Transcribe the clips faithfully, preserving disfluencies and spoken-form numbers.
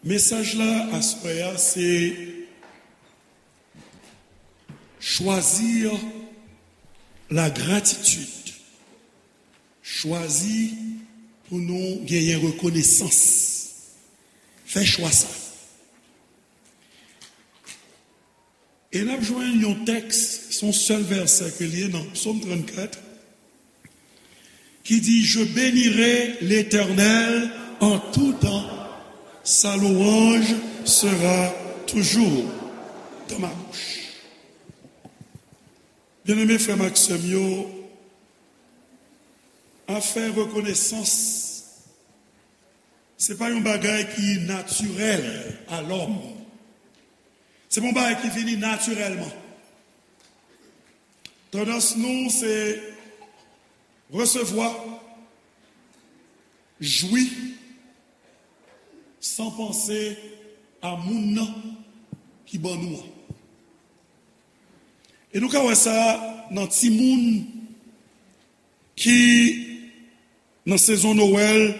Mesaj la aswè a se choisir la gratitude. Chwazi pou nou genyen rekonesans. Fè chwa sa. E n ap jwenn yon tèks, se yon sèl vèsè ke l ye nan Psaume trente-quatre, ki di, Je bénirai l'Éternel en tout temps, sa louange sera toujours dans ma bouche. Byeneme frè m ak sè m yo, afè rekonesans, se pa yon bagay ki natirèl a lòm. Se pa yon bagay ki vini natirèlman. Tandans nou se resevwa, jwi, san panse a moun nan ki ban nou an. E nou ka wè sa nan timoun ki nan sezon Nwèl,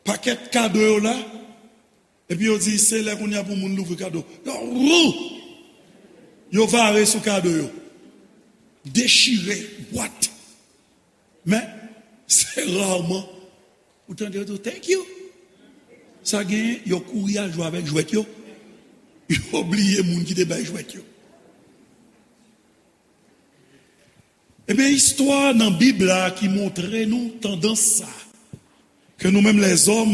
pakèt kado yo la, epi yo di se lè kounye a pou moun louvri kado. Yo, wou! Yo vare sou kado yo. Dechire bwat. Men, se raman ou tande yo di w, "Thank you." Sa gen, yo kouri al jwe avèk jwèt yo. Yo bliye moun ki te bay jwèt yo. Ebyen, istwa nan Bib la ki montre nou tandans sa, ke nou menm lèzòm,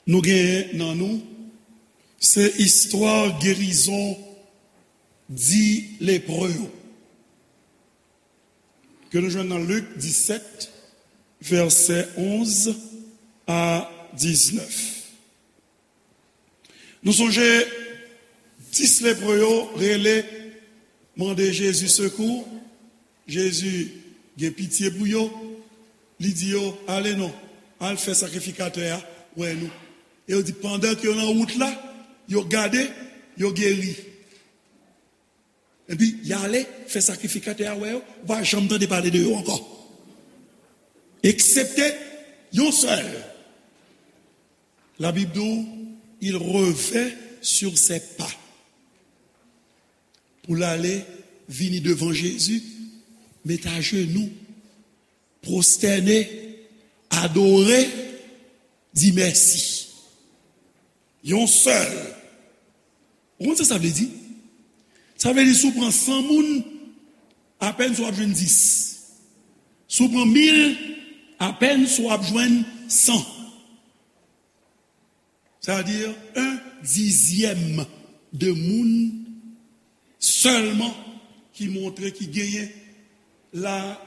nou genyen nan nou, se istwa gerizon dis lepre yo. Ke nou jwenn nan Lik disèt, vèsè onz a diznèf. Nou sonje, dis lepre yo rele, mande Jezi sekou. Jezi gen pitye pou yo. Li di yo, "Ale non, al fè sakrifikatè a wè nou." E yo di, pandan ke yo nan wout la, yo gade, yo geri. Epi, y ale, fè sakrifikatè a wè yo, ou pa janm tande pale de yo ankò. Eksepte yon sèl. Labib di w, il revint sur ses pas. Pou l ale, vini devan Jezi, met ajenou, pwostène, adore, di mèsi. Yon sèl. Ou konn sa sa vle di? Sa vle di si w pran san moun, apèn si w ap jwenn dis. Si w pran mil, apèn si w ap jwenn san. Sa vle di, un dizyèm de moun sèlman ki montre, ki genyen la,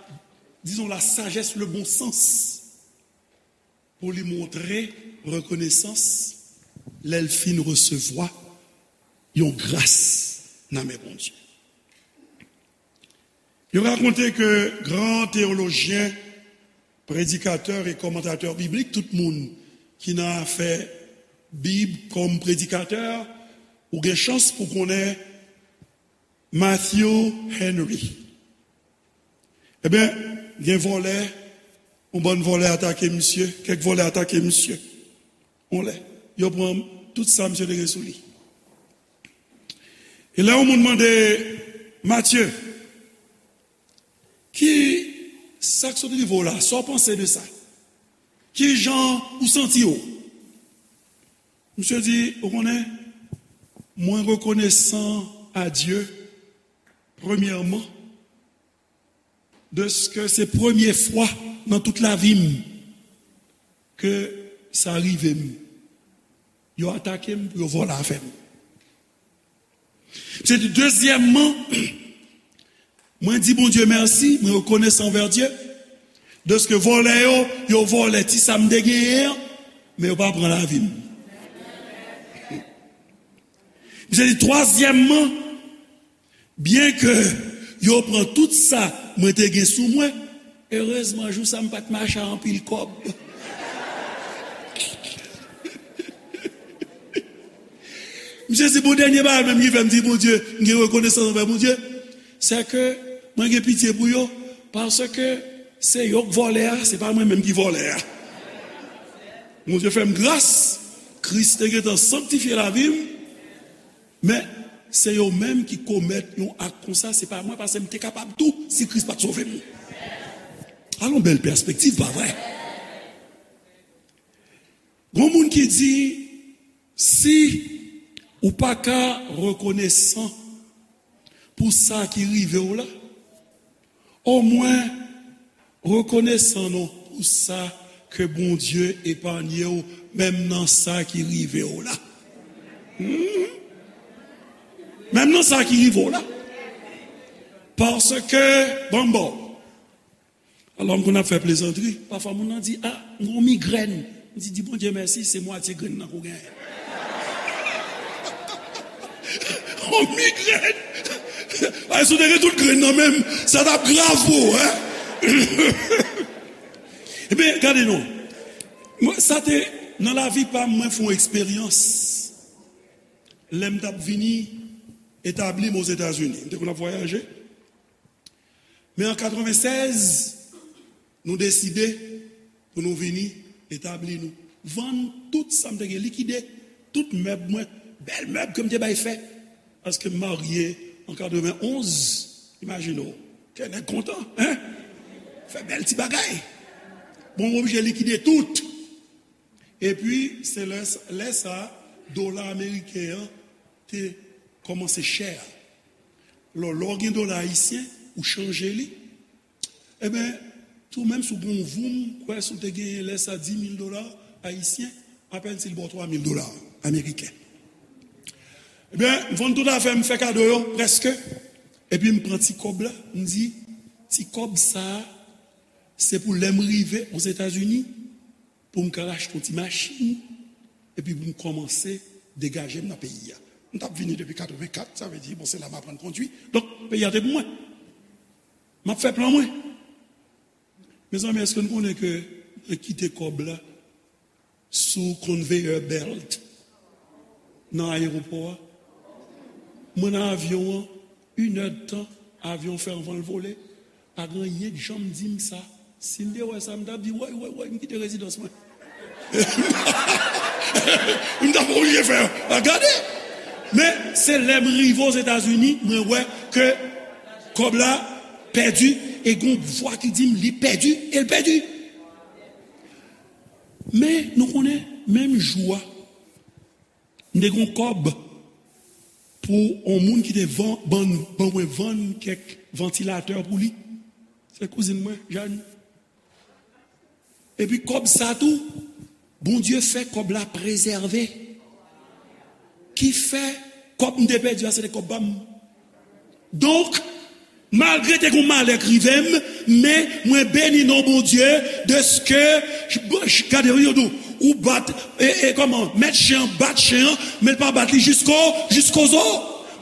dizon, la sajès, le bon sans, pou li montre rekonesans lè l fin resevwa yon gras nan men Bondye. Yo rakonte ke gran teyolojyen, predikatè e kòmantatè biblik, tout moun ki nan afè Bib kòm predikatè, ou gen chans pou konnen Matthew Henry. Ebyen, gen vòlè, yon bann vòlè atake misye, kèk vòlè atake misye. Yon lè, yo pran tout sa misye te gen sou li. E lè yon moun mande Matye, ki sa k sot rive w la? Sa w panse de sa? Ki jan ou santi w? Misye di, ou konnen, mwen rekonesan a Dye, premyèman, dèske se premye fwa nan tout lavi m ke sa rive m. Yo atake m pou yo vòlè afè m. Se di, dezyèmman, mwen di Bondye mèsi, mwen rekonesan anvè Dye, dèske vòlè yo, yo vòlè ti sa m te genyen an, men yo pa pran lavi m. Se di, twazyèmman, byenke yo pran tout sa mwen te gen sou mwen, erezman, jou sa m pa t mache ak anpil kòb. Misye di, bon, dènye bagay menm ki fè m di Bondye, m gen rekonesans anvè Bondye, se ke mwen gen pitye pou yo, paske se yo k vòlè a, se pa mwen menm ki vòlè a. Bondye fè m gras, Kris te gentan sanktifye lavi m, men se yo menm ki komèt yon ak konsa, se pa mwen, paske m te kapab tou si Kris pa t sove m. Alon bèl pèspektiv, pa vre? Gon moun ki di, si ou pa ka rekonesan pou sa ki rive w la, omwen rekonesan non pou sa ke Bondye epanye w, menm nan sa ki rive w la. Hmm. Menm nan sa ki rive w la. Paske, ban m ba w. Alò, m konn ap fè plezantri. Pafwa, moun nan di, "A, m gon migrèn." M di, "Di Bondye mèsi, se mwatye grenn nan ke w genyen." On migrèn! Ay, si w te gen tout grenn nan menm, sa t ap grav pou ou, en? Ebyen, gade non. Mwen, sa te, nan lavi pa m, mwen fè yon eksperyans. Lè m t ap vini etabli m Ozetazini, m te konn ap vwayaje. Men an katrevennsèz, nou deside pou nou vini etabli nou. Vann tout sa m te gen, likide tout mèb mwen, bèl mèb ke m te bay fè. Paske m marye an katrevenonz, imajine w, kè nèg kontan, en? Fè bèl ti bagay. Bon, m oblije likide tout. Epi, se lè, lè sa, dola ameriken an te kòmanse chè. Lò, lè w gen dola ayisyen, ou chanje li. Ebyen, tou menm si w gen yon voum, kwè si w te genyen lè sa di mil dola ayisyen, apèn si l ba w twa mil dola ameriken. Ebyen, m vann tout afè m, fè kado yo, prèske. Epi m pran ti kòb la, m di, ti kòb sa a, se pou lè m rive Ozetazini, pou m ka achte yon ti machin, epi pou m kòmanse degaje m nan peyi a. M t ap vini depi katrevenkat, sa vle di, bon, se la m aprann kondwi. Donk, peyi a te pou mwen. M ap fè plan mwen. Mezanmi, èske nou konnen ke mwen kite kòb la sou conveyor belt nan ayewopò a? Mwen nan avyon an, inèdtan, avyon fè anvan l vole. Pa gen anyen k janm di m sa. Si m te wè sa, m t ap di, "Woy, woy, woy, m kite rezidans mwen." M t ap oblije fè, a, gade. Men, se lè m rive Ozetazini, mwen wè ke kòb la pèdi, e gon vwa ki di m, "Li pèdi, e l pèdi." Men, nou konnen, menm jou a, m te gen yon kòb pou yon moun ki te van-, ban, ban mwen vann kèk vantilatè pou li. Se kouzin mwen, Jàn. Epi kòb sa tou, Bondye fè kòb la prezève. Ki fè, kòb m te pèdi a, se te kòb pa m. Donk, malgre te gen yon malè k rive m, men mwen beni non Bondye, dèske, gade, yo di w, ou bat, e, e, kòman, mèt chen an bat chen an, men l pa bat li jisko, jisko zo.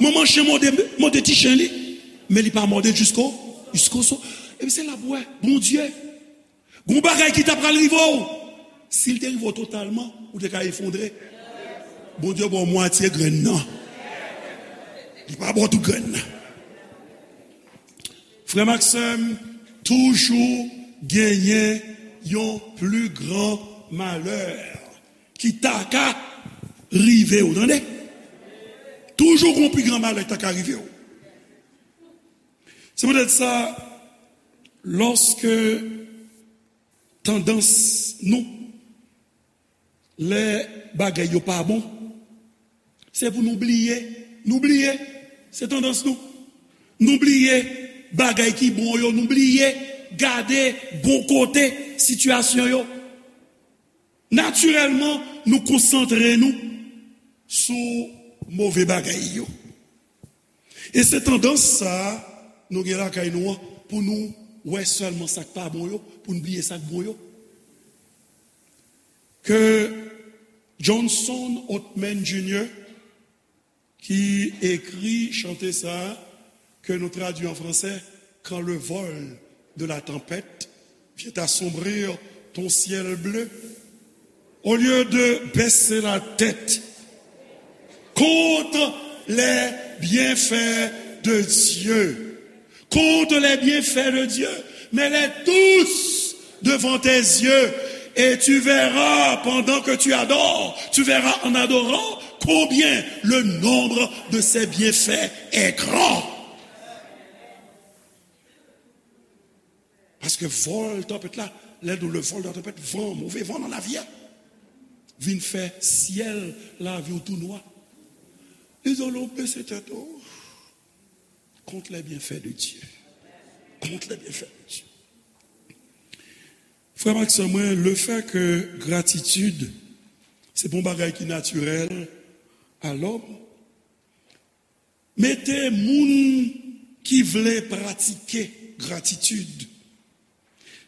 Manman chen mòde, mòde ti chen li, men li pa mòde l jisko, jisko zo. Epi se la pou wè, Bondye. Gon bagay ki ta pral rive w. Si l te rive w totalman, ou te ka efondre. Bondye ba w mwatye grenn nan. Li pa ba w tout grenn nan. Frè m ak sè m, toujou genyen yon pli gran malè ki ta ka rive w, tande. Toujou gon pli gran malè ki ta ka rive w. Se poutèt sa, lòske tandans nou, lè bagay yo pa bon, se pou nou bliye. Nou bliye. Se tandans nou. Nou bliye bagay ki bon yo. Nou bliye gade bon kote sitiyasyon yo. Natirèlman, nou konsantre nou sou move bagay yo. E se tandans sa a nou gen lakay nou an, pou nou wè sèlman sa k pa bon yo, pou n bliye sa k bon yo. Ke Johnson Oatman Junior, ki ekri chante sa a, ke nou tradui an fransè, Quand le vol de la tempête vient assombrir ton ciel bleu, au lieu de baisser la tête, compte les bienfaits de Dieu. Compte les bienfaits de Dieu. Mets-les tous devant tes yeux. Et tu verras, pendant que tu adores, tu verras en adorant combien le nombre de ses bienfaits est grand. Paske vòl tanpèt la, lè nou le vòl de tanpèt, van, move van nan lavi a, vin fè syèl lavi w tou nwa. Li di w, lè w bese tèt ou, compte les bienfaits de Dieu. Compte les bienfaits de Dieu. Frè m ak sè mwen, lefètke gratitid se pa yon bagay ki natirèl a lòm, mete moun ki vle pratike gratitid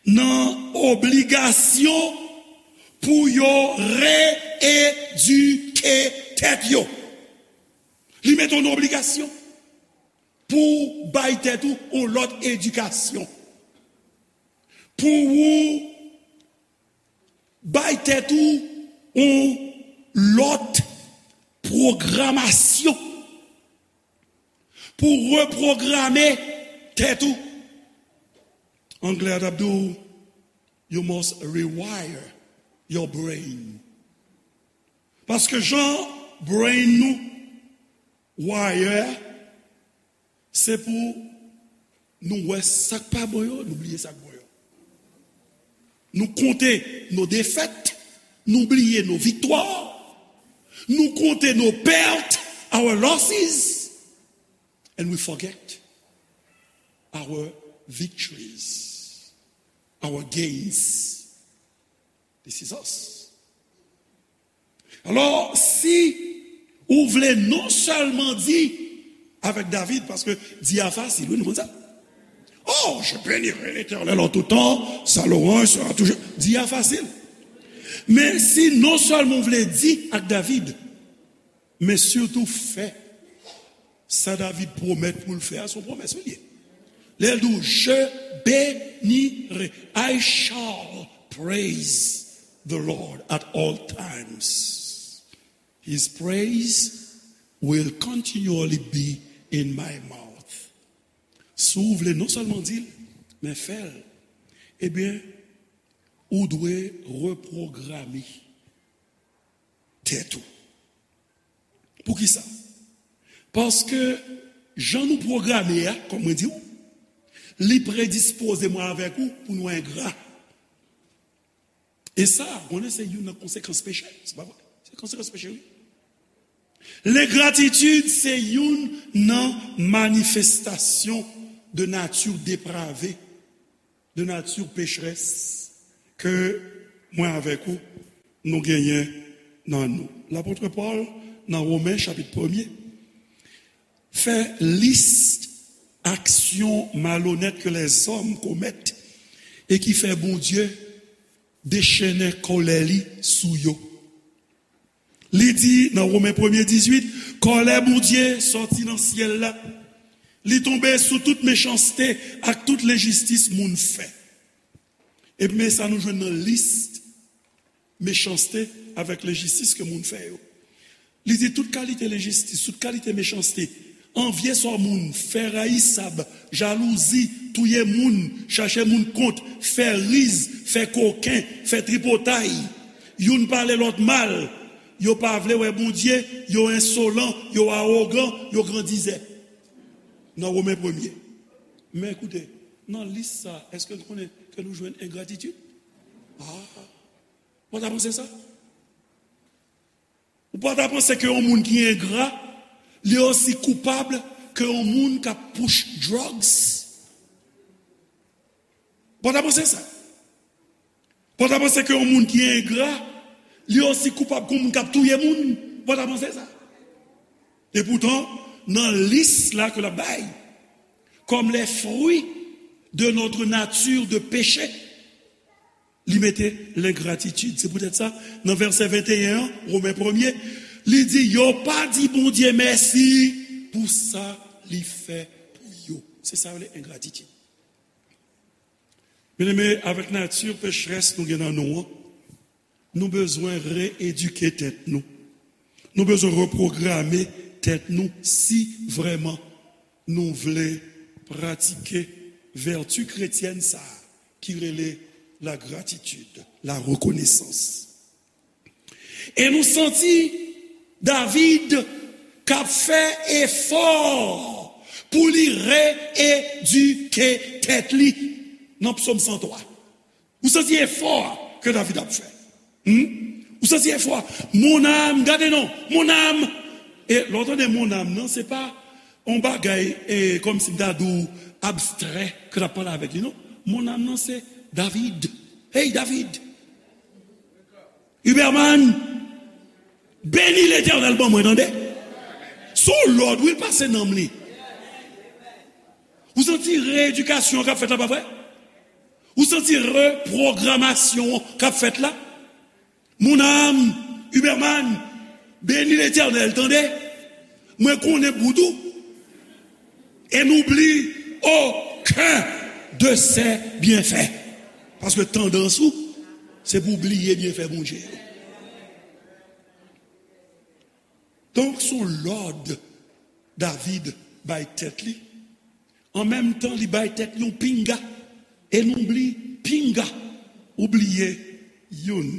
nan obligasyon pou yo reedike tèt yo. Li mete w nan obligasyon pou bay tèt ou yon lòt edikasyon, pou ou bay tèt ou yon lòt pwogramasyon, pou repwograme tèt ou. Anglè a t ap di w, you must rewire your brain. Paske jan brain nou wire, se pou nou wè sa k pa bon yo, nou bliye sa k bon yo. Nou konte nou defèt, nou bliye nou viktwa, nou konte nou pèt, our losses, and we forget our victories, our gains. This is us. Alò, si ou vle non sèlman di avèk David, paske di a fasil, wi, nou konn sa. Oh, je bénirai l'Éternel en tout temps, sa louange sera toujours. Di a fasil. Men si non sèlman ou vle di ak David, men sitou fè sa David pwomèt pou l fè a, se yon pwomès li ye. Lè l di w, je bénirai, I shall praise the Lord at all times. His praise will continually be in my mouth. Si w vle non sèlman di l, men fè l, ebyen, ou dwe repwograme tèt ou. Poukisa? Paske jan nou pwograme a, kòm mwen di w, li predispoze mwen avèk ou pou nou engra. E sa, konnen se youn nan konsekans peche, se pa vre? Se konsekans peche, wi. Lengratitid se youn nan manifestasyon de nati deprave, de nati pecherès ke mwen avèk ou nou genyen nan nou. Lapot Pòl, nan Women chapit premye, fè lis aksyon malonèt ke lèzòm komèt e ki fè Bondye dechennen kòlè li sou yo. Li di nan Women premye dizuit, kòlè Bondye sòti nan syèl la. Li tonbe sou tout mechanste ak tout lenjistis moun fè. Epi men sa nou jwenn nan lis mechanste avèk lenjistis ke moun fè yo. Li di tout kalite lenjistis, tout kalite mechanste, anvye sò moun, fè rayisab, jalouzi, touye moun, chache moun kont, fè riz, fè koken, fè tripotay. Youn pale lòt mal, yo pa vle wè Bondye, yo ensolan, yo awogan, yo grandizè. Nan Women premye. Men koute, nan lis sa, èske n konnen ke nou jwenn engratitid? Ah, ou pa ta panse sa? Ou pa ta panse ke yon moun ki engra, li osi koupab ke yon moun k ap push drugs? Ou pa ta panse sa? Ou pa ta panse ke yon moun ki engra, li osi koupab ke yon moun k ap touye moun? Ou pa ta panse sa? Epoutan, nan lis la ke l ap bay, comme les fruits de notre nature de péché, li mete lengratitid. Se poutèt sa, nan vèsè venteyen an, Women premye, li di, yo pa di Bondye mèsi pou sa li fè pou yo. Se sa yo rele engratitid. Byeneme, avèk nati pecherès nou gen nan nou an, nou bezwen reedike tèt nou. Nou bezwen repwograme tèt nou si vrèman nou vle pratike vèti kretyèn sa a ki rele la gratitid, la rekonesans. E nou santi David k ap fè efò pou li reyedike tèt li nan Psòm san twa. Ou santi efò a ke David ap fè? Hmm? Ou santi efò a? Mon âme, gade non, mon âme. E lè w tande mon âme nan, se pa yon bagay e, kòmsi m ta di w abstrè ke l ap pale avèk li, non. Mon âme nan, se David. Hey, David! Huberman, beni Letènèl ban mwen, tande. Se yon lòd, wi, l pase nanm li. Ou santi reyedikasyon k ap fèt la, pa vre? Ou santi repwogramasyon k ap fèt la? Mon âme, Huberman, beni Letènèl, tande. Mwen konnen bout ou. Et n'oublie aucun de ses bienfaits. Paske tandans ou, se pou w bliye byenfè Bondye yo. Donk, se yon lòd David bay tèt li. An menm tan, li bay tèt li yon pinga. Et n'oublie, pinga, ou bliye youn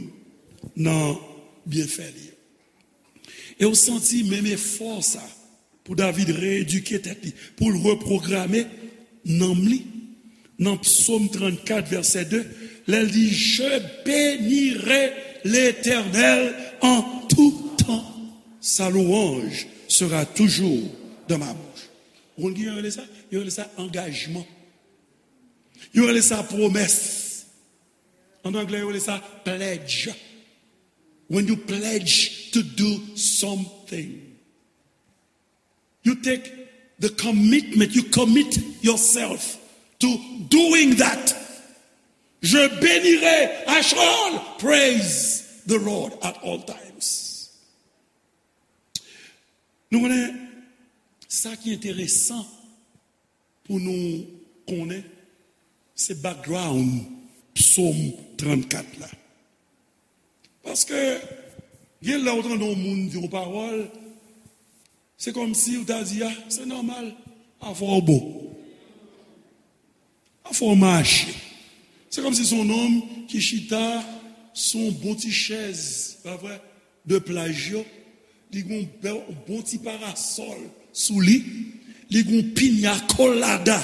nan byenfè li yo. E w santi menm efò sa pou David reyedike tèt li, pou l repwograme nanm li. Nan Psaume trente-quatre, verset deux, lè l di, je bénirai l'Éternel en tout temps, sa louange sera toujours dans ma bouche. Ou konn ki yo rele sa? Yo rele sa angajman. Yo rele sa pwomès. An anglè, yo rele sa pledge. When you pledge to do something, you take the commitment, you commit yourself to doing that. Je bénirai, I shall praise the Lord at all times. Nou konnen sa ki enteresan pou nou konnen se background Psaume trente-quatre la. Paske gen lè ou tande yon moun di yon pawòl, se kòmsi ou ta di, a, se nòmal, afè w bon. Afè w mache. Se kòmsi se yon nonm ki chita sou yon bon ti chèz, pa vre, de plaj yo. Li gen yon bèl, yon bon ti parasòl sou li. Li gen yon piña colada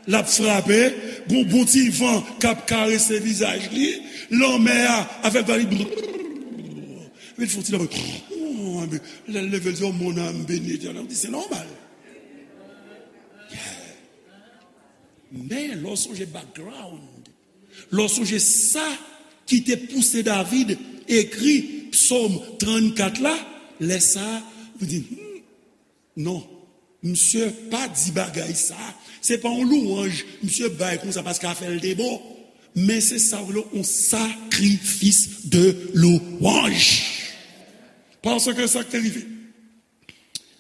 l ap frape. Gen yon bon ti van k ap karese vizaj li. Lanmè a avèk vag li. Epi l fè yon ti lanmè. Oh, epi lè l leve, l di, oh, mon âme bénit Letènèl. Ou di, se nòmal. Yeah. Men, lè w sonje background, lè w sonje sa ki te pouse David ekri Psaume trente-quatre la, lè sa a, ou di, hmm, non, misye pa di bagay sa a. Se pa yon louwanj misye bay konsa paske afè l te bon. Men se sa w rele yon sacrifice de louange. Paske sa k te rive.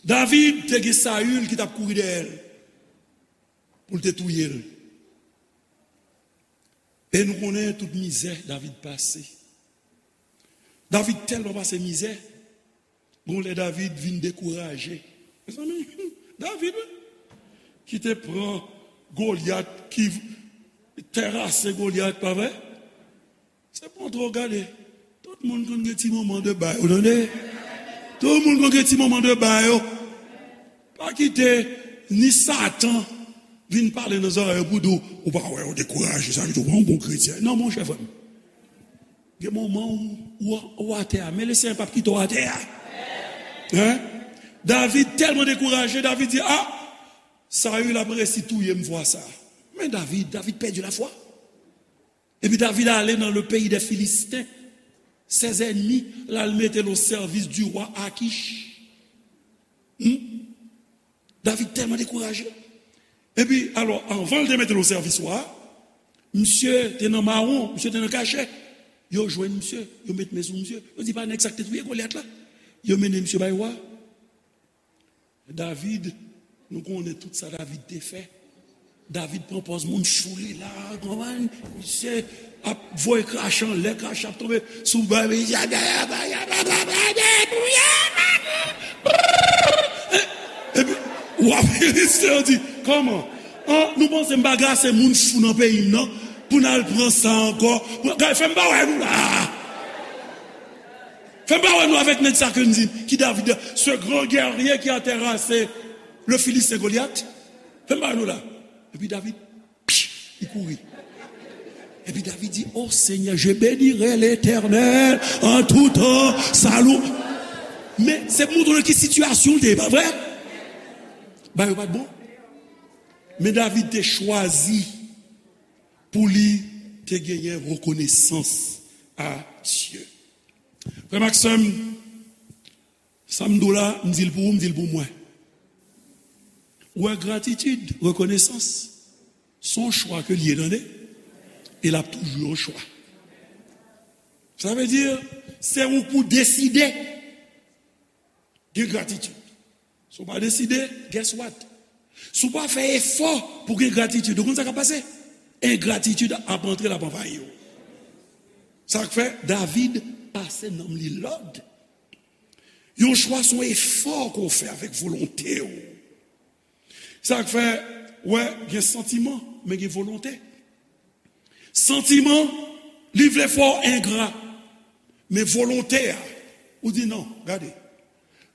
David te gen Saül ki t ap kouri dèyè l pou l te touye l. E nou konnen tout mizè David pase. David tèlman pase mizè, gon lè David vin dekouraje. Mezanmi, David, wi, ki te pran Golyat, ki terase Golyat, pa vre? Se pa twò gade. Tout moun konn gen ti moman de ba yo, tande? Tout moun konn gen ti moman de ba yo. Pa kite ni Satan vin pale nan zòrèy ou pou di w, ou pa wè, ou dekouraje, sa vle di ou pa yon bon kretyen. Non, monchè, frè m. Gen moman ou, ou, ou atè a, men Lesenyè p ap kite w atè a. Hein? David tèlman dekouraje, David di, a, Saül ap resi touye m fwa sa. Men David, David pèdi lafwa. Epi David ale nan le pays des Philistins. Ses ennemis, l al mete l o sèvis di wa Akish. Hmm? David tèlman dekouraje. Epi, alò, anvan l te mete l o sèvis wa a, misye te nan mawon, misye te nan kachè. Yo jwenn misye, yo met men sou misye. Yo di, pa nèg sa k te touye Golyat la. Yo mennen misye bay wa a. David, nou konnen tout sa David te fè. David pran pòz moun chou li la, konprann? Misye ap voye krache anlè, krache ap tonbe sou bay. Epi, wa Filistin yo di, kòman? An, nou panse m pa grase moun fou nan peyi m nan? Pou n al pran sa ankò. Pou, gade, fè m pa wè nou la. Fè m pa wè nou avèk nèg sa ke n di, ki David, ce grand guerrier qui a terrassé le Philistin Goliath. Fè m pa wè nou la. Epi David, pch, li kouri. Epi David di, "Oh Seigneur, je bénirai l'Éternel en tout temps, sa lou." Men, se pou montre nou ki sitiyasyon l te ye, pa vre? Bagay yo pa t bon. Men David te chwazi pou li te genyen rekonesans a Dye. Frè m ak sè m, sa m di w la, m di l pou ou, m di l pou mwen. Ou wè, gratitid, rekonesans, se yon chwa ke l ye, tande. E l ap toujou yon chwa. Sa vle di, se ou pou deside gen gratitid. Si w pa deside, guess what? Si w pa fè efò pou gen gratitid, ou konn sa k ap pase? Engratitid ap antre, l ap anvayi w. Sa k fè David pase nanm li lòd. Yon chwa se yon efò ke w fè avèk volonte w. Sa k fè, wè, gen santiman, men gen volonte. Santiman, li vle fè w engra. Men volonte a, ou di, "Non, gade,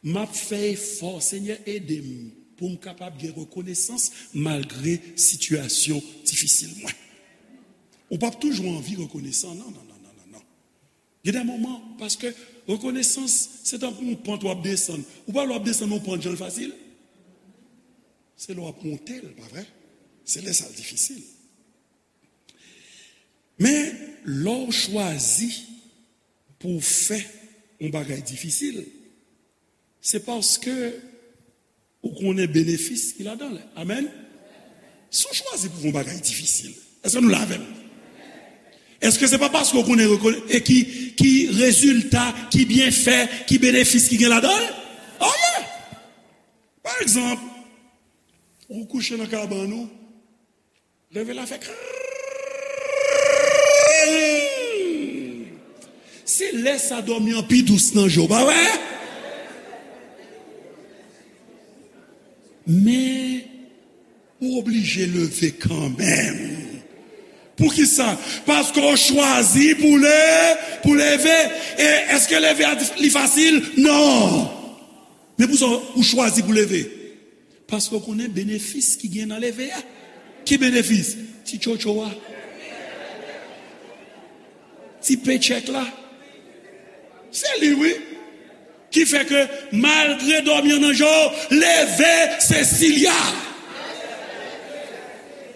m ap fè efò, Senyè, ede m pou m kapab gen rekonesans malgre sitiyasyon difisil mwen." Ou p ap toujou anvi rekonesan, non, non, non, non, non, non. Gen de moman, paske rekonesans, se tankou yon pant w ap desann. Ou pa wè w ap desann yon pant, jan l fasil? Se lè w ap monte l, pa vre? Se lè sa l difisil. Men, lè w chwazi pou w fè yon bagay difisil, se paske ou konnen benefis ki ladan l. Amèn? Si w chwazi pou w fè yon bagay difisil, èske nou la avè m? Èske se pa paske w konnen rekone-, e ki, ki rezilta, ki byenfè, ki benefis ki gen ladan l? Oh yeah! Pa egzanp, ou kouche nan kabann ou, leve la fè krrrr. Se lè sa dòmi an pi dous nan je w, pa vre? Men, ou oblije leve kanmenm. Poukisa? Paske w chwazi pou le-, pou leve. E èske leve a li fasil? Non. Men pou sa, ou chwazi pou leve. Paske w konnen benefis ki gen nan leve a. Ki benefis? Ti tchotcho a. Ti pechèk la. Se li, wi. Ki fè ke malgre dòmi an nan je w, leve, se Silya.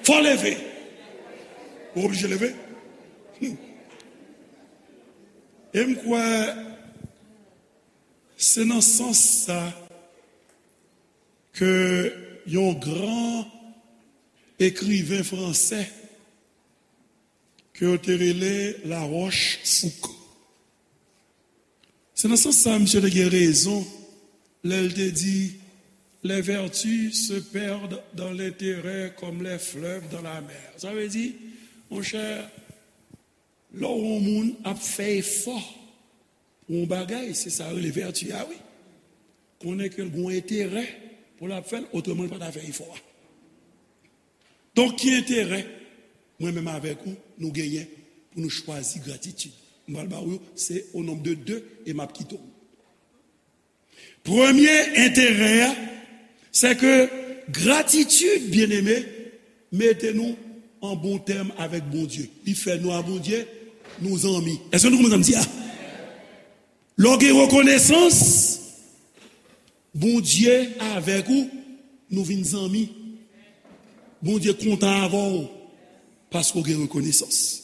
Fò leve. Ou oblije leve. Hmm. E m kwè se nan sans sa ke yon gran ekriven fransè ke yo te rele Larochefoucauld. Se nan sans sa misye te gen rezon lè l te di, les vertus se perdent dans l'intérêt comme les fleuves dans la mer. Sa vle di, monchè, lè w wè yon moun ap fè efò pou yon bagay, se sa yo rele vèti a, wi. Konnen ke l gen yon enterè pou l ap fè l, otreman l pa ta fè efò a. Donk, ki enterè mwen menm avèk ou nou genyen pou nou chwazi gratitid? M pral ba w yo, se o nonb de de e m ap kite w. Premye enterè a, se ke gratitid, byeneme, mete nou an bon tèm avèk Bondye. Li fè nou a Bondye, nou zanmi. Èske nou konprann sa m di a? Lè w gen rekonesans, Bondye avèk ou, nou vin zanmi. Bondye kontan avè w paske w gen rekonesans.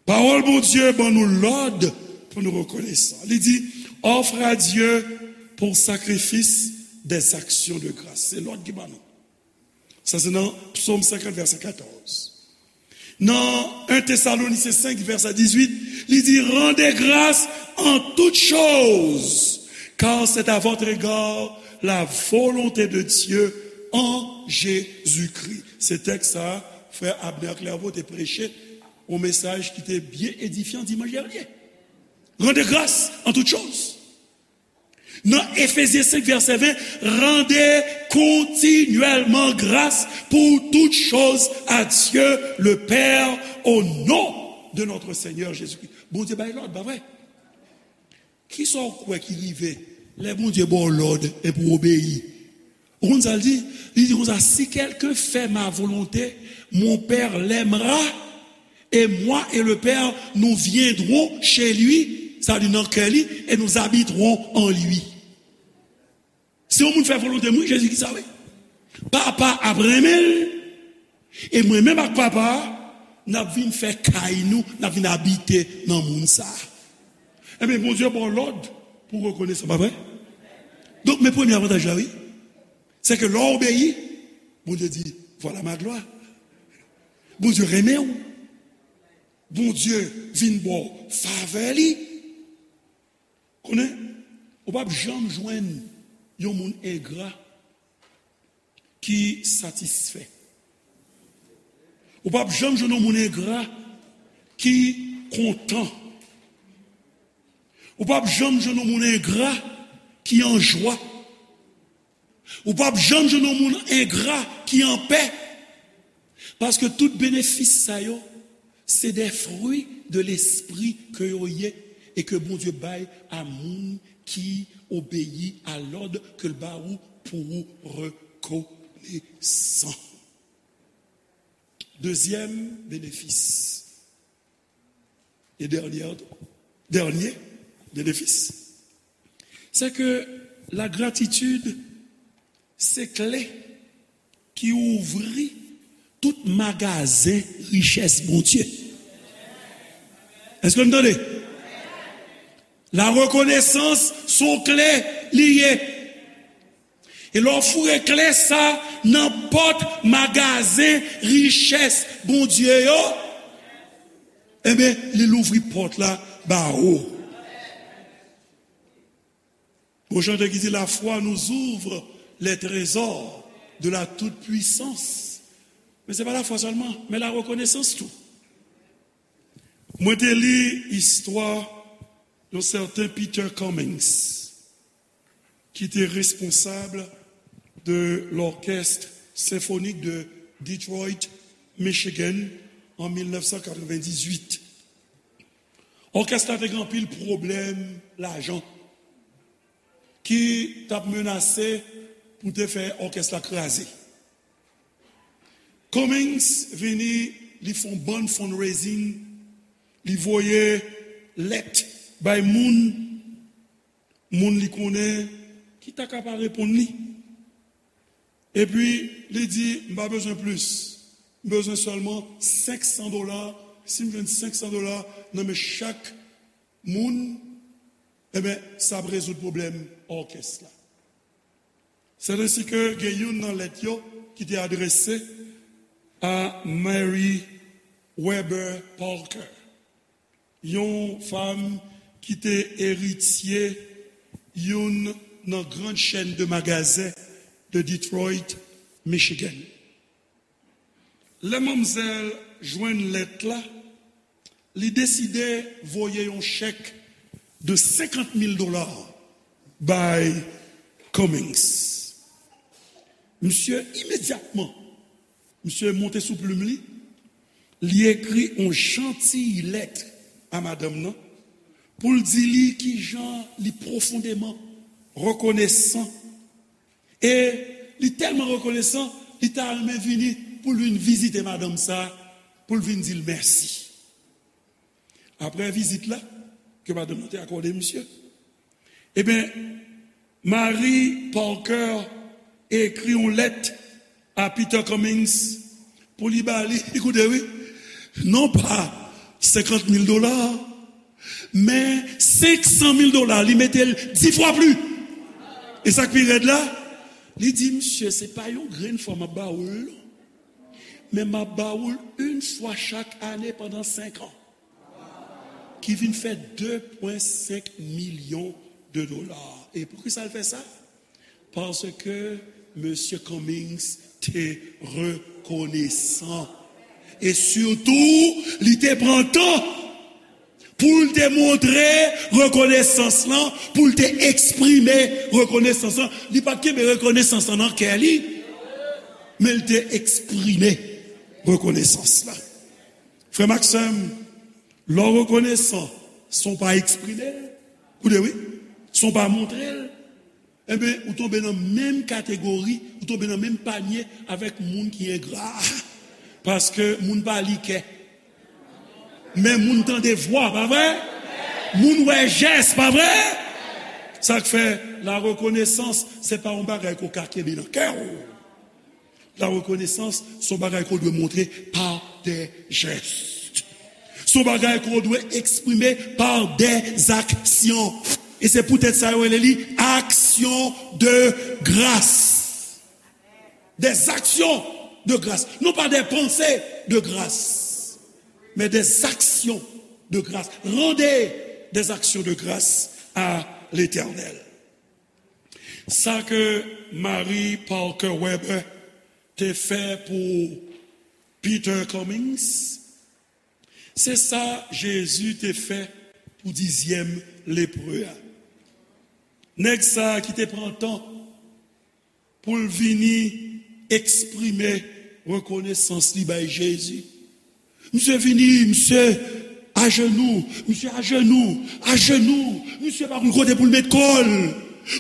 Pawòl Bondye ban nou lòd pou nou rekonesan. Li di, offre à Dieu pour sacrifice des actions de grâce. Se lòd ki ban nou. Sa se nan Psaume cinquante, verset quatorze. Nan un Thessaloniciens cinq, verset dix-huit, li di, rendez grâce en toutes choses, car c'est à votre égard la volonté de Dieu en Jésus-Christ. Se tèks sa, frè Abner Clairvaux te preche yon mesaj ki te byen edifyan dimanch dènye. Rendez grâce en toutes choses. Nan Efezyen senk vèsè ven, rendez continuellement grâce pour toutes choses à Dieu le Père au nom de notre Seigneur Jésus-Christ. Bondye bay lòd, pa vre? Kisa w kwè ki rive lè Bondye ba w lòd epi w obeyi? Ou konn sa l di? Li di konsa, si quelqu'un fait ma volonté, mon Père l'aimera, et moi et le Père, nous viendrons chez lui, sa vle di nan kè li, et nous habiterons en lui. Si yon moun fè volonte mwen, Jezi di sa, wi. Papa ap renmen l, e mwen menm ak Papa a, n ap vin fè kay nou, n ap vin abite nan moun sa a. Ebyen, Bondye ba w lòd pou w rekonesan, pa vre? Donk, men premye avantaj la, wi. Se ke lè w obeyi, Bondye di, voilà ma gloire. Bondye renmen w. Bondye vin ba w favè li. Konnen, ou p ap janm jwenn yon moun engra ki satisfè. Ou p ap janm jwenn yon moun engra ki kontan. Ou p ap janm jwenn yon moun engra ki an jwa. Ou p ap janm jwenn yon moun engra ki anpè. Paske tout benefis sa yo, se des fruits de l'esprit ke yo ye e ke Bondye bay a moun ki obeyi a lòd ke l ba ou pou ou rekonesan. Dezyèm benefis, e dènyè, dènyè benefis, se ke la gratitid se kle ki ouvri tout magazen richès Bondye. Èske n tande? La rekonesans se yon kle li ye. E lè w foure kle sa nan pòt magazen richès Bondye yo, ebyen, li louvri pòt la ba ou. Gon chante ki di, la foi nous ouvre les trésors de la toute-puissance. Men se pa lafwa sèlman, men la rekonesans tou. Mwen te li istwa yon sèten Peter Cummings, ki te responsab de l'Orchestre Symphonique de Detroit, Michigan, an mil nèf san katrevendizuit. Òkès la te gen anpil pwoblèm lajan ki t ap menase pou te fè òkès la kraze. Cummings vini, li fè yon bann fundraising, li voye lèt bay moun, moun li konnen ki ta ka pa reponn li. Epi, li di, m pa bezwen plis. M bezwen sèlman senk san dola. Si m jwenn senk san dola nan men chak moun, ebyen, sa ap rezoud pwoblèm òkès la. Sèt ensi ke gen youn nan lèt yo ki te adrese a Mary Weber Parker, yon fanm ki te eritye youn nan grann chèn de magazen de Detroit, Michigan. Lè manmzèl jwenn lèt la, li deside voye yon chèk de senkant mil dola bay Cummings. Misye imedyatman, misye monte sou plim li, li ekri yon jantiy lèt a madanm nan pou l di li kijan li pwofondeman rekonesan. E li tèlman rekonesan, li ta renmen vini pou l vin vizite madanm sa, pou l vin di l mèsi. Apre vizit la, ke madanm nan te akòde misye, ebyen, Mary Parker ekri yon lèt a Peter Cummings pou li ba li, li koute wi, non pa senkant mil dola, men senk san mil dola, li mete l dis fwa plis. E sa k pi rèd la, li di, misye, se pa yon grenn fwa m ap ba ou l non, men m ap ba ou l yon fwa chak ane pandan senk an, ki vin fè de pwen senk milyon de dola. E poukisa l fè sa? Paske Mesye Cummings te rekonesan. E sitou, li te pran tan Pou l te montre rekonesans lan, pou l te eksprime rekonesans lan. Li pa t kenbe rekonesans lan nan kè li, men l te eksprime rekonesans lan. Frè m ak sè m, lè w rekonesan san w pa eksprime l, koute wi, san w pa montre l, enben, ou tonbe nan menm kategori, ou tonbe nan menm panye avèk moun ki engra. Paske moun pa li kè. Men moun tande vwa, pa vre? Moun wè jès, pa vre? Sa k fè la rekonesans, se pa yon bagay ke w ka kenbe nan kè w. La rekonesans, se yon bagay ke w dwe montre pa de jès. Se yon bagay ke w dwe eksprime pa de zaksyon. E se poutèt sa yo rele li aksyon de gras. Des actions de grâce. Non pas des pensées de grâce, mais des actions de grâce. Rendez des actions de grâce à l'Éternel. Sa ke Mary Parker Weber te fè pou Peter Cummings, se sa Jezi te fè pou dizyèm lepre a. Nèg sa a ki te pran tan pou l vini eksprime rekonesans li bay Jezi. Misye vini, misye ajenou, misye ajenou, ajenou, misye pa konn kote pou l met kò l.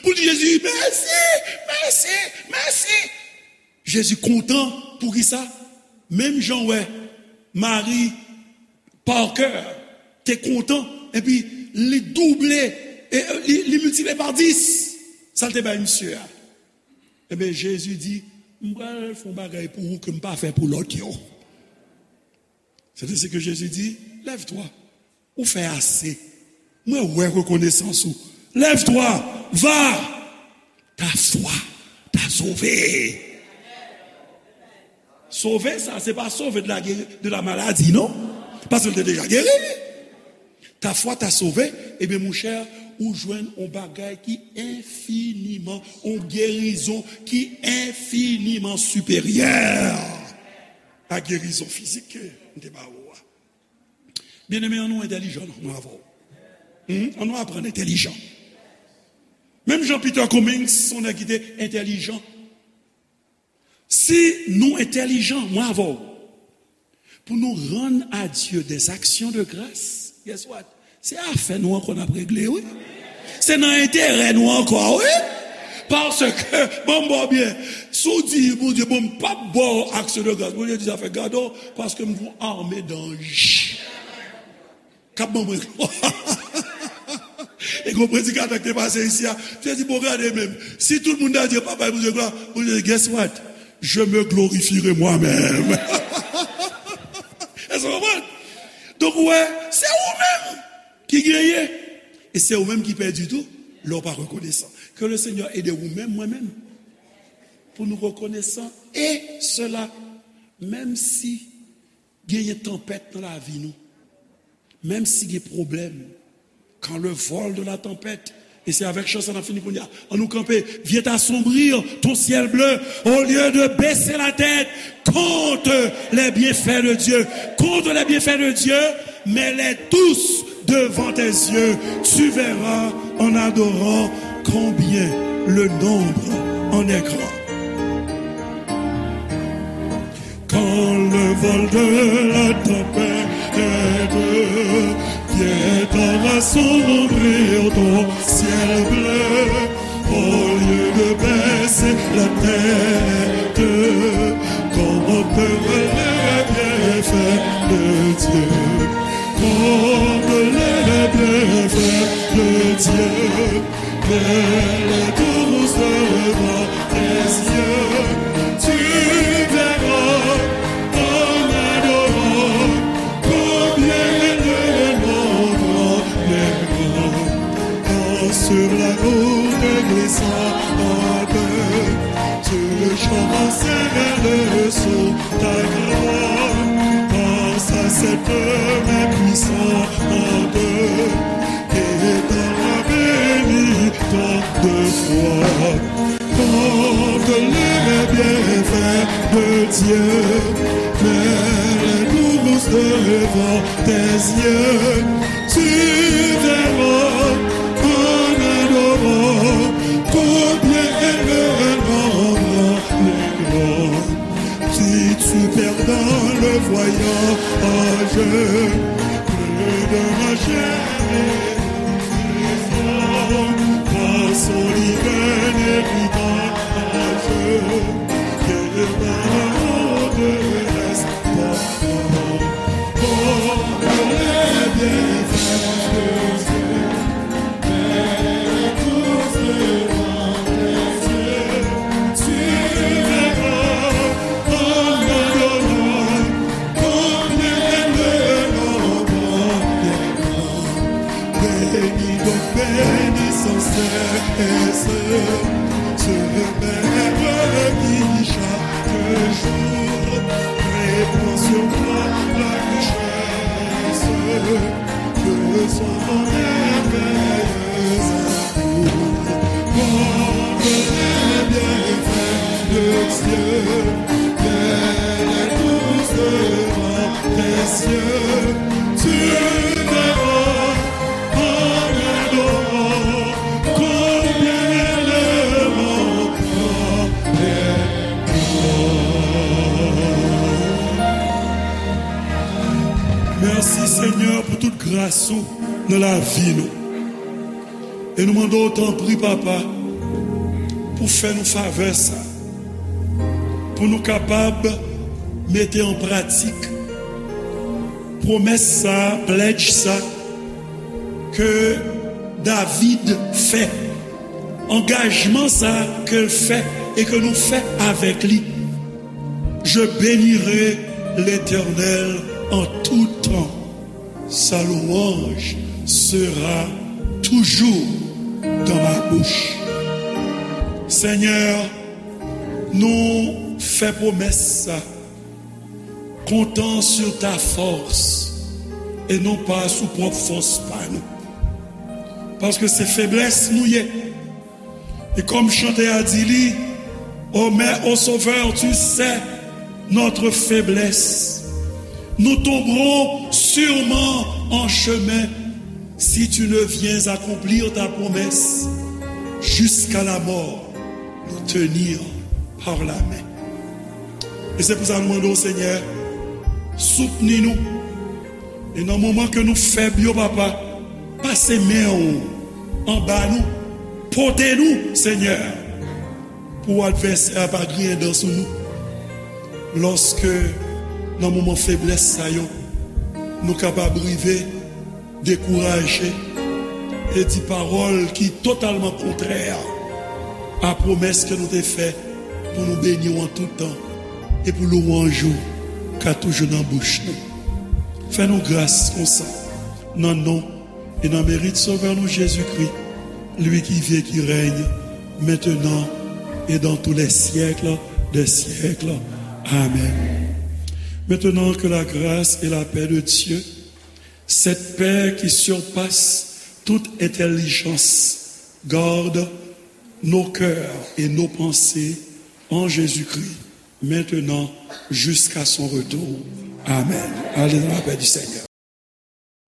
Pou l di Jezi, mèsi, mèsi, mèsi. Jezi kontan, poukisa? Menm jan w wè Mary Parker te kontan, epi li double, e, li, li miltipliye pa dis sa l te bay misye a. Ebyen, Jezi di, m pral fè yon bagay pou ou ke m pa fè pou lòt yo. Se te se ke Jezi di, lève-toi, ou fè ase. Mwen wè rekonesans ou. Lève-toi, va, ta foi t'a sauvé. Sove sa, se pa sove de la, de la maladi, non. Paske l te deja geri. Ta foi t'a sauvé, ebyen, monchè, ou jwenn yon bagay ki enfiniman, yon gerizon ki enfiniman siperyè a gerizon fizik ke m te ba ou a. Byeneme, ann nou entèlijan, non, mwen avè w. Hmm? Ann nou aprann entèlijan. Menm jan Peter Cummings, se yon nèg ki te entèlijan. Si nou entèlijan, mwen avè w, pou nou rann a Dye des actions de grâce, guess what? Se afè nou ankò n ap regle, wi. Se nan enterè nou ankò, wi. Paske, ban m ba w byen, si w di, Bondye, bon, m p ap ba w aksyon de gras, Bondye di, sa fè gade w, paske m gen yon ame danj k ap ban mwen glwa. E gen yon predikatè ki te pase isi a, te di, bon, gade menm, si tout moun ta di, yo pa bay Bondye glwa, Bondye di, guess what? Je me glorifierai moi-même. Èske w konprann? Donk, ou wè, se ou menm ki genyen. E se ou menm ki pèdi tou, lè w pa rekonesan. Que le Seigneur aide ou menm, mwen menm, pou nou rekonesan. E sela, menm si genyen tanpèt nan lavi nou, menm si gen pwoblèm, quand le vol de la tempête, e se avèk chan sa n ap fini kounye a. Ann nou kanpe. Vient assombrir ton ciel bleu, au lieu de baisser la tête contre les bienfaits de Dieu. Contre les bienfaits de Dieu, mets-les tous devant tes yeux. Tu verras en adorant combien le nombre en est grand. Quand le vol de la tempête vient assombrir ton ciel bleu, au lieu de baisser la tête, contemple les bienfaits de Dieu. Contemple les bienfaits de Dieu. Mets-les tous devant tes yeux, tu verras en adorant combien le nombre est grand. Quand sur la route glissante, tu le chant, Seigneur, le son ta gloire. Pense à cette main puissante et dans la béni tant de fois. Contemple les bienfaits de Dieu, mets-les tous devant tes yeux. Tu verras en adorant combien elle est grande. Si tu perds dans le voyage, plus de ma chair et de son, passant l'hiver et l'hiver, que le monde reste. Oh, les bienfaits de Dieu, mets tous devant tes yeux, tu verras en adorant combien le nombre des grands. Bénis donc, bénis sans cesse ce Maître qui chaque jour répand sur moi la richesse de son merveilleux amour. Combien les bienfaits de Dieu, mets tous devant tes yeux, tu verras en adorant combien le monde est grand. Mèsi, Senyè, pou tout gras ou nan lavi nou. E nou mande w, tanpri, Papa, pou fè nou favè sa, pou nou kapab mete an pratik pwomès sa, pledge sa, ke David fè, angajman sa ke l fè e ke nou fè avèk li. Je bénirai l'Éternel en tout temps. Sa louange sera toujours dans ma bouche. Senyè, nou fè pwomès sa, comptant sur ta force et non pas sou pwòp fòs pa nou. Paske se feblès nou ye. E kòm chante a di li, oh, mais, oh Sauveur, tu sais notre faiblesse. Nous tomberons sûrement en chemin si tu ne viens accomplir ta promesse. Jusqu'à la mort, nous tenir par la main. E se pou sa nou mande w, Senyè, soutni nou. E nan moman ke nou fèb yo, Papa, pase men w anba nou, pote nou, Senyè, pou advèsè a pa griyen dan sou nou. Lòske nan moman feblès sa yo, nou kapab rive dekouraje e di pawòl ki totalman kontrè a pwomès ke nou te fè pou nou beni w an tout tan e pou lwanj ou ka toujou nan bouch nou. Fè nou gras konsa, nan non e nan merit Sovè nou Jezikri, lui qui vit et qui règne maintenant et dans tous les siècles des siècles. Amen. Maintenant, que la grâce et la paix de Dieu, cette paix qui surpasse toute intelligence, garde nos cœurs et nos pensées en Jésus-Christ, maintenant jusqu'à son retour. Amen. Allez dans la paix du Seigneur.